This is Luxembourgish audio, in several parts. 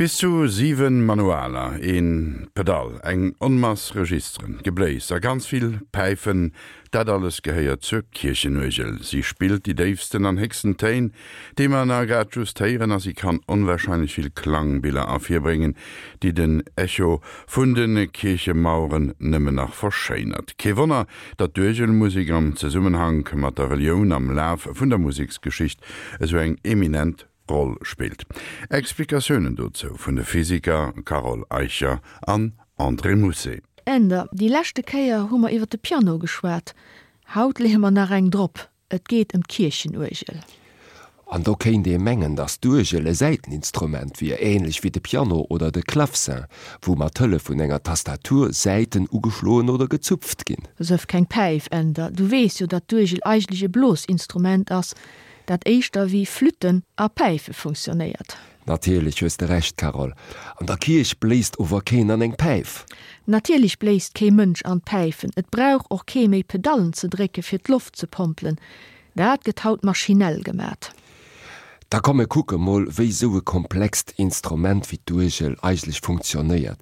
Bis zu 7 Manualer, een Pedall, eng Onmass Registeren, Gebléis a ganz vill Päifen, dat alles gehéiert zur Kierchenuergel. Si spillt déi déifsten an héchsten Téin, déi mer na grad just héieren, a si kann onwahrscheinlech vill Klangbiller ervirbréngen, déi den Echo vun de Kierchemaueren nëmmen nach verschéinert. Kee Wonner, datt d'Uergelmusek am Zesummenhank mat der Relioun am Laf vun der Museksgeschicht esou eng eminent Roll spillt. Explikatiounen dozou vun de Physiker Carole Eicher an André Mousset. Änder, Déi leschte Kéier hu mer iwwer de Piano geschwat. Haut leeë mer nach eng drop, et geet ëm d'Kierchenuergel. An do kéint ee mengen, datt d'Uergel e Säiteninstrument wier, änlech wéi de Piano oder de Clavecin, wou mat Hëllef vun enger Tastatur Säiten ugeschloen oder gezupft ginn. Sëff keng Päif, Änder, du weess jo, datt d'Uergel eigentlech e Blosinstrument ass, dat éischter wéi Flütten a Päife funktionéiert. Natierlech hues de Recht, Carole. An der Kierch bléist ower keen an eng Päif. Natierlech bléist kee Mënsch an d'Päifen. Et brauch och kee méi Pedallen ze drécke fir d'Loft ze pompelen. Dat gëtt haut maschinell gemat. Da komm mir kucke mol, wéi sou e komplext Instrument wéi d'Uergel eigentlech funktionéiert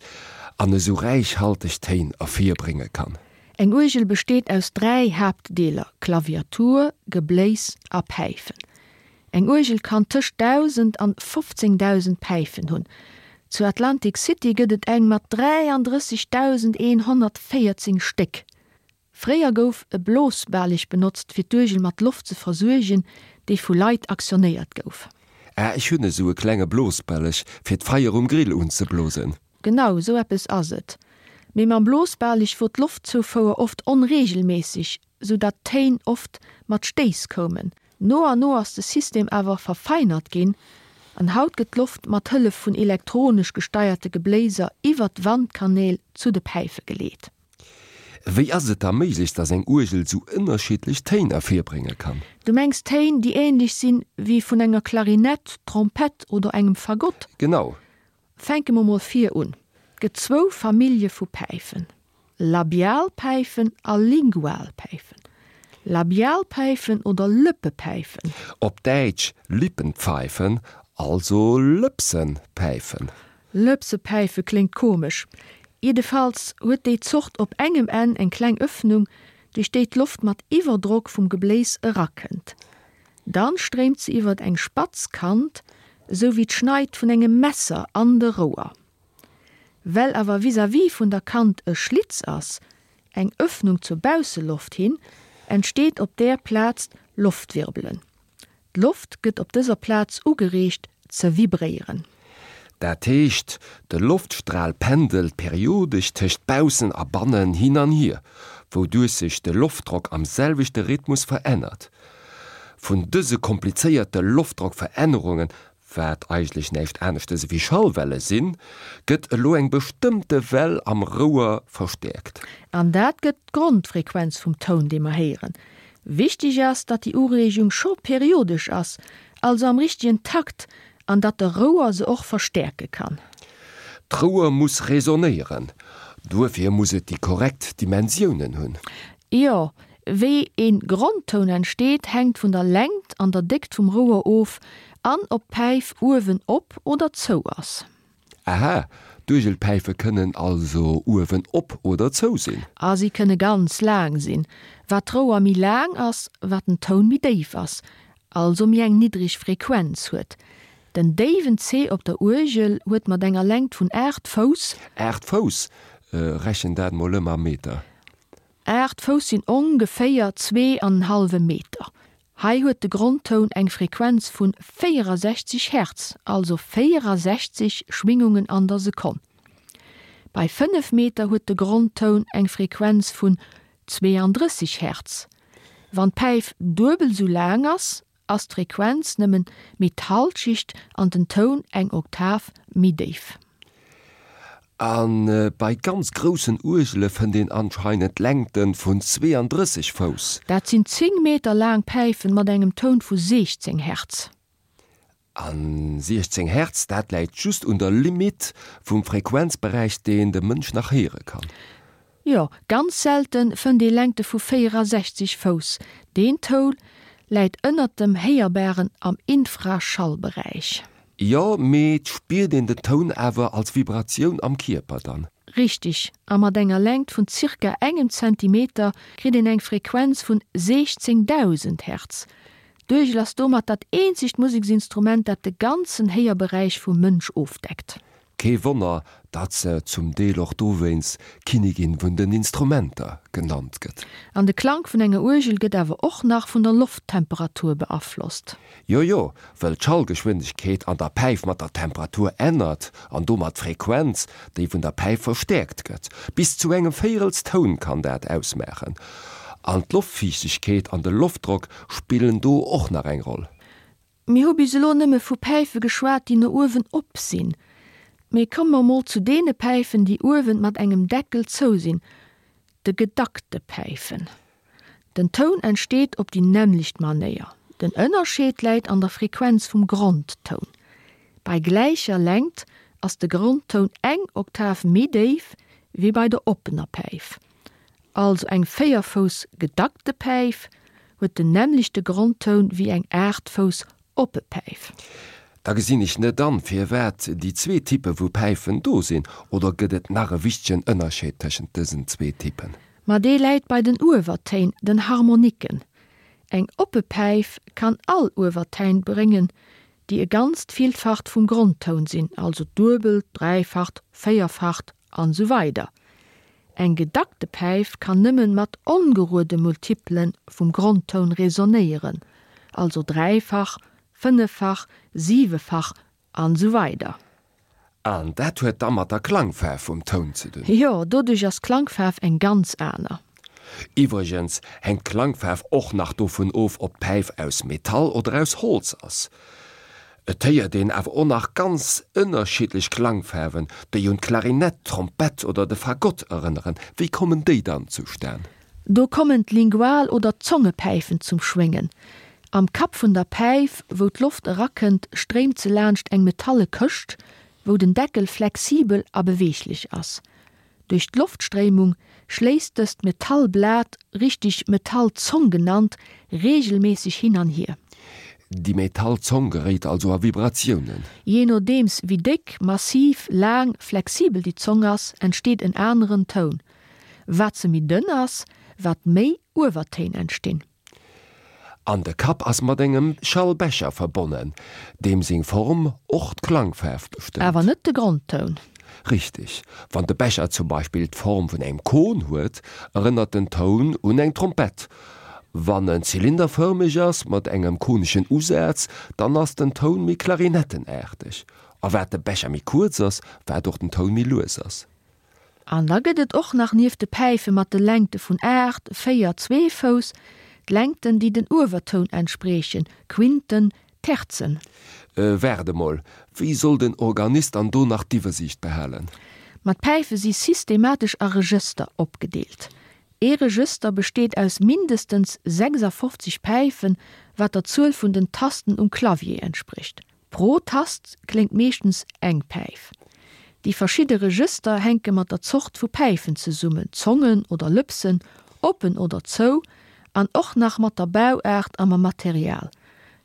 an esou räichhalteg Téin ervirbrénge kann. Eng Uergel besteet aus 3 Haaptdeeler, Klaviatur, Gebléis a Päifen. Eng Uergel kann tëscht 1.000 an 15.000 Päifen hunn. Zu Atlantic City gëtt et eng mat 33.114 Stéck. Fréier gouf e Blosbaleg benotzt fir d'Uergel mat Loft ze versuergen, déi vu Leit aktionéiert gouf. Ah, ech hunn esou e klenge Blosballeg fir d'Feier um Grill unzeblosen. Genau esou eppes ass et. Mee mam Blosbaleg wor d'Loftzoufouer oft onregelméisseg, sou datt d'Téin oft mat Stéiss koumen. No an no ass de System awer verfeinert ginn an haut gëtt d'Loft mat Hëllef vun elektronesch gesteierte Gebléiser iwwert d'Wandkanäl zu de Päife geleet. Wéi ass et da méiglech, dass eng Uergel sou ënnerschiddlech Téin ervirbrénge kann? Du mengs Téin, déi ähnlech sinn wéi vun enger Klarinett, Trompett oder engem Fagott? Genau. Fänke mer mol vir un. Et gëtt zwou Famillje vu Päifen, Labialpäifen a Lingualpäifen. Labialpäifen oder Lëppepäifen. Op Däitsch Lippenpfeifen, also Lëpsenpäifen. Lëpsepäife kléngt komesch. Jiddefalls huet déi Zort op engem Enn eng kleng Öffnung, duerch déi d'Loft mat Iwwerdrock vum Gebléis erakënnt. Dann stréimt se iwwert eng spatz Kant, esou wéi d'Schneid vun engem Messer, an de Rouer. Well awer vis-à-vis vun der Kant e Schlitz ass, eng Öffnung zur Bausseloft hin, entsteet op där Plaz Loftwirbelen. D'Loft gëtt op dëser Plaz ugereegt ze vibréieren. Dat heescht, de Loftstral pendelt periodesch tëscht baussen a bannen hin an hier, wouduerch sech de Loftdrock am selwechte Rhythmus verännert. Vun dëse komplizéierte Loftdrockverännerungen, wat eigentlech näischt aneschtes ewéi Schallwelle sinn, gëtt elo eng bestëmmte Well am Rouer verstäerkt. An dat gëtt d'Grondfrequenz vum Toun, dee mer héieren. Wichteg ass, datt déi Ureegung scho periodesch ass, also am richtegen Takt, an datt de Rouer se och verstäerke kann. D'Rouer muss resonéieren, duerfir muss et déi korrekt Dimensiounen hunn. Jo, wéi een Grondtoun entsteet, hänkt vun der Längt an der Déckt vum Rouer of an ob d'Päif uewen op oder zou ass. Aha, d'Uergelpäife kënnen also uewen op oder zou sinn. A si kënne ganz laang sinn. Wat d'Rouer méi laang ass, wat den Toun méi déif ass, also méi eng niddreg Frequenz huet. Den déiwen C op der Uergel huet mat enger Längt vun 8 Fouss. 8 Fouss? Rechen dat mol ëm a Meter. 8 Fouss sinn ongeféier zwee an en hallwe Meter. Hei huet de Grondtoun eng Frequenz vun 64 Hertz, also 64 Schwingungen an der Sekonn. Bei 5 Meter huet de Grondtoun eng Frequenz vun 32 Hertz. Wann d'Päif duebel sou laang ass, ass d'Frequenz nëmmen méi d'Halschicht an den Toun eng Oktav méi déif. A bei ganz groussen Uergele fënnt een anscheinend Längte vun 32 Fouss. Dat sinn 10 Meter laang Päifen mat engem Toun vu 16 Hertz. A 16 Hertz, dat läit just un der Limite vum Frequenzberäich, deen de Mënsch nach héiere kann. Jo, ganz selte fënnt ee Längte vu 64 Fouss. Deen Toul läit ënnert dem Héierbaren am Infraschallberäich. Jo, mee 't spiert een den Toun awer als Vibratioun am Kierper dann. Richteg, a mat enger Längt vun zirka engem Zentimeter kritt een eng Frequenz vun 16.000 Hertz. D'Uergel ass domat dat eenzegt Museksinstrument, dat de ganzen Héierberäich vum Mënsch ofdeckt. Kee Wonner, datt se zum Deel och dowéinst Kinnigin vun den Instrumenter genannt gëtt. An de Klank vun enger Uergel gëtt awer och nach vun der Lofttemperatur beaflosst. Jo jo, wëll d'Schallgeschwindegkeet an der Päif mat der Temperatur ännert an domat d'Frequenz, déi vun der Päif verstäerkt gëtt. Bis zu engem Véierelstoun kann dat ausmaachen. An d'Loftfiichtegkeet an de Loftdrock spillen do och nach eng Roll. Mir hu bis elo nëmme vu Päife geschwat, déi no uewen op sinn. Mee komme mer mol zu deene Päifen, déi uewen mat engem Deckel zou sinn, de gedackte Päifen. Den Toun entsteet op déi nämmlecht Manéier. Den Ënnerscheed läit an der Frequenz vum Grondtoun. Bei gläicher Längt ass de Grondtoun eng Oktav méi déif wéi bei der oppener Päif. Also eng 4 Fouss gedackte Päif huet den nämmlechte Grondtoun wéi eng 8 Fouss oppe Päif. Da gesinn ech net an, firwat déi zwee Typpe vu Päifen do sinn. Oder gëtt et nach e wichtegen Ënnerscheed tëschent dësen zwee Typpen? Ma dee läit bei den Uewertéin, den Harmoniken. Eng oppe Päif kann all Uewertein bréngen, déi e ganzt Villfacht vum Grondtoun sinn, also d'Duebelt, Dräifacht, Véierfacht an esou weider Eng gedackte Päif kann nëmmen mat ongeruede Multiplen vum Grondtoun resonéieren, also dräifach, fënneffach, siwefach an esou weider. An dat huet da mat der Klangfaarf vum Toun ze dun. Jo, doduerch ass d'Klangfaarf eng ganz aner. Iwwregens hänkt d'Klangfaarf och nach dovun of, ob d'Päif aus Metall oder aus Holz ass. Et héiert een awer och nach ganz ënnerschiddlech Klangfaarwen, déi un d'Klarinett, d'Trompett oder de Fagott erënneren. Wéi kommen déi dann zustan? Do kommen d'Lingual oder d'Zongepäifen zum Schwéngen. Am Kapp vun der Päif, wou d'Loft erakënnt, stréimt se laanscht eng metalle Këscht, wou den Deckel flexibel a beweeglech ass. Duerch d'Loftstréimung schléisst dëst Metallblat, richtig Metallzong genannt, reegelméisseg hin an hier. Déi Metallzong geréit also a Vibratiounen. Jee nodeems wéi déck, massiv, laang, flexibel déi Zong ass, entsteet en aneren Toun. Wat se méi dënn ass, wat méi Uewertéin entstinn. An de Kapp ass mat engem Schallbecher verbonnen, deem seng Form och d'Klangfaarf bestëmmt. Awer net de Grondtoun. Richteg. Wann de Becher zum Beispill d'Form vun engem Kon huet, erënnert den Toun un eng Trompett. Wann en zylinderfërmeg ass, mat engem koneschen Usaz, dann ass den Toun méi klarinettenaarteg. A wat de Becher méi kuerz ass, wat och den Toun méi lues ass. An da gëtt et och nach nieft de Päife mat de Längte vun 8, 4, zwee Fouss, d'Längten, déi den Uewertoun entspriechen, Quinten, Terzen. Waart emol, wéi soll den Organist dann do nach d'Iwwersiicht behalen? Ma d'Päife si systematesch a Regëster opgedeelt. Ee Regëster besteet aus mindestens 56 Päifen, wat der Zuel vun den Tasten um Clavier entsprécht. Pro Tast kléngt meeschtens eng Päif. Déi verschidde Regëster hänke mat der Zort vu Päifen zesummen, Zongen oder Lëpsen, oppen oder zou, an och nach mat der Bauaart a mam Material.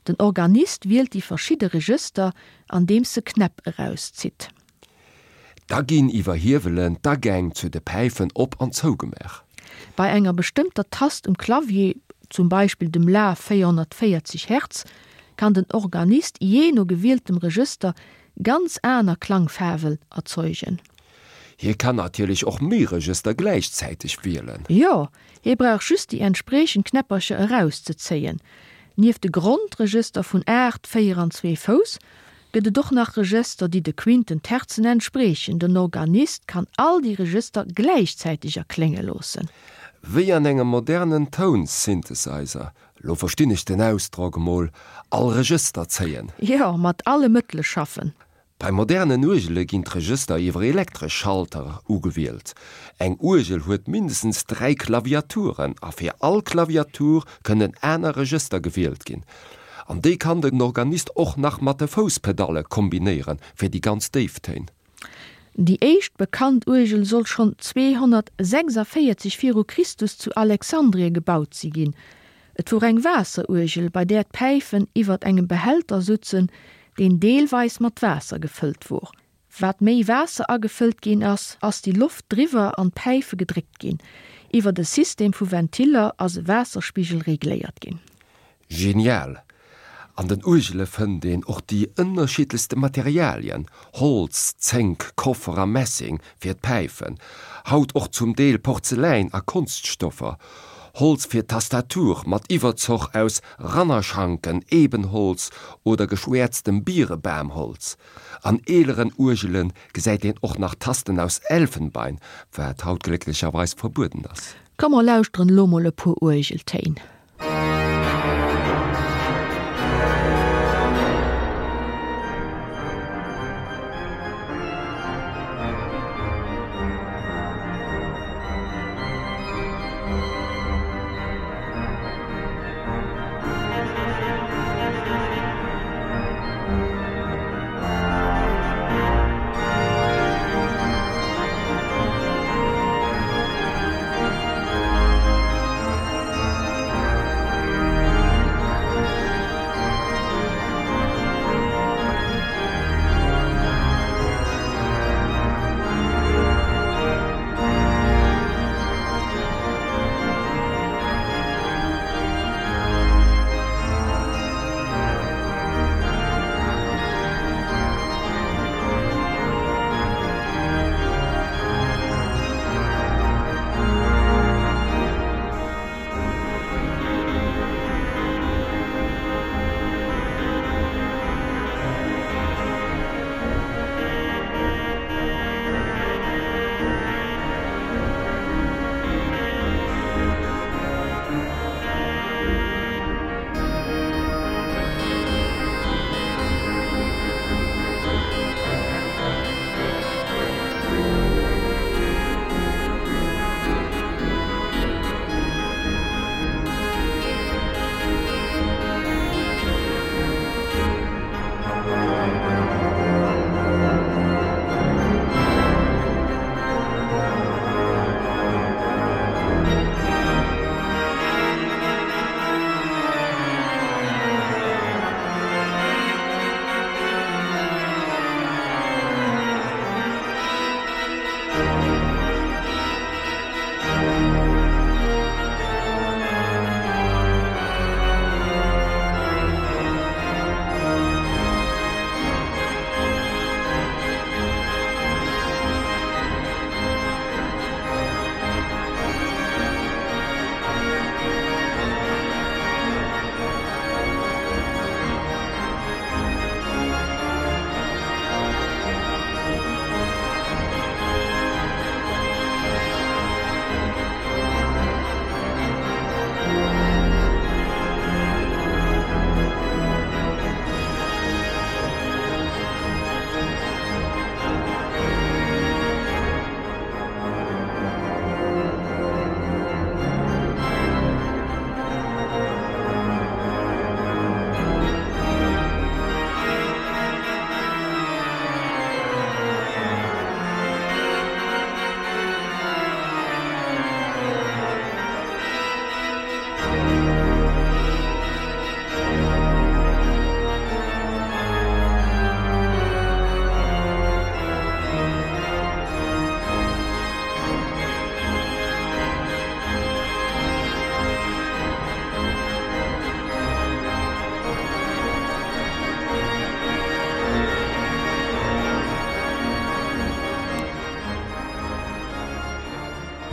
Den Organist wielt déi verschidde Regëster, andeems e Knäpp erauszitt. Da ginn iwwer Hiewelen d'Agäng zu de Päifen op an zougemaach. Bei enger bestëmmter Tast um Clavier, zum Beispill dem La 440 Hertz, kann den Organist jee no gewieltem Regëster ganz aner Klangfaarwen erzeugen. Hie kann natierlech och méi Regëster gläichzäiteg wielen. Jo, hie brauch just déi entspriechend Knäppercher erauszezéien. Nieft de Grondregëster vun 8, 4 an 2 Fouss gëtt et och nach Regëster, déi de Quinten, Terzen entspriechen. Den Organist kann all déi Regëster gläichzäiteg erklénge loossen. Wéi an engem modernen Toun-Synthesizer, lo verstinn ech den Ausdrock emol, all Regëster zéien. Jo, mat alle Mëttele schaffen. Bei modernen Uergele ginn d'Regëster iwwer elektresch Schalter ugewielt. Eng Uergel huet mindestens 3 Klaviaturen a fir all Klaviatur kënnen aner Regëster gewielt ginn. An déi kann den Organist och nach mat de Fousspedalle kombinéieren, fir déi ganz déif Téin. Déi éischt bekannt Uergel soll schonn 246 viru Christus zu Alexandrie gebaut si ginn. Et wor eng Waasseruergel, bei där d'Päifen iwwert engem Behälter sutzen, deen deelweis mat Waasser gefëllt wor. Wat méi Waasser agefëllt ginn ass, ass déi Loft driwwer an d'Päife gedréckt ginn. Iwwert e System vu Ventiller ass e Waasserspigel regléiert ginn. Genial! An den Uergele fënnt een och déi ënnerschiddlechste Materialien, Holz, Zénk, Koffer a Messing fir d'Päifen, haut och zum Deel Porzeläin a Konststoffer, Holz fir d'Tastatur mat Iwwerzoch aus Rannerschanken, Ebenholz oder geschwäerztem Bierebamholz. An eeleren Uergele gesäit een och nach Tasten aus Elfenbein, wat haut glécklecherweis verbueden ass. Komm mer lauschteren elo mol e puer Uergeltéin.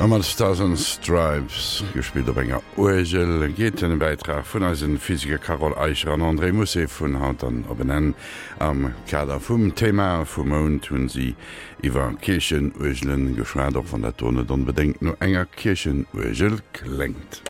A mat Stars and Stripes, gespillt op enger Uergel, geet den Bäitrag vun eisen Physiker Carole Eicher an André Mousset vun haut dann op en Enn. Am Kader vum Thema vum Mount hunn si iwwer Kierchenuergelen geschwat, och wann dat do net onbedéngt no enger Kierchenuergel kléngt.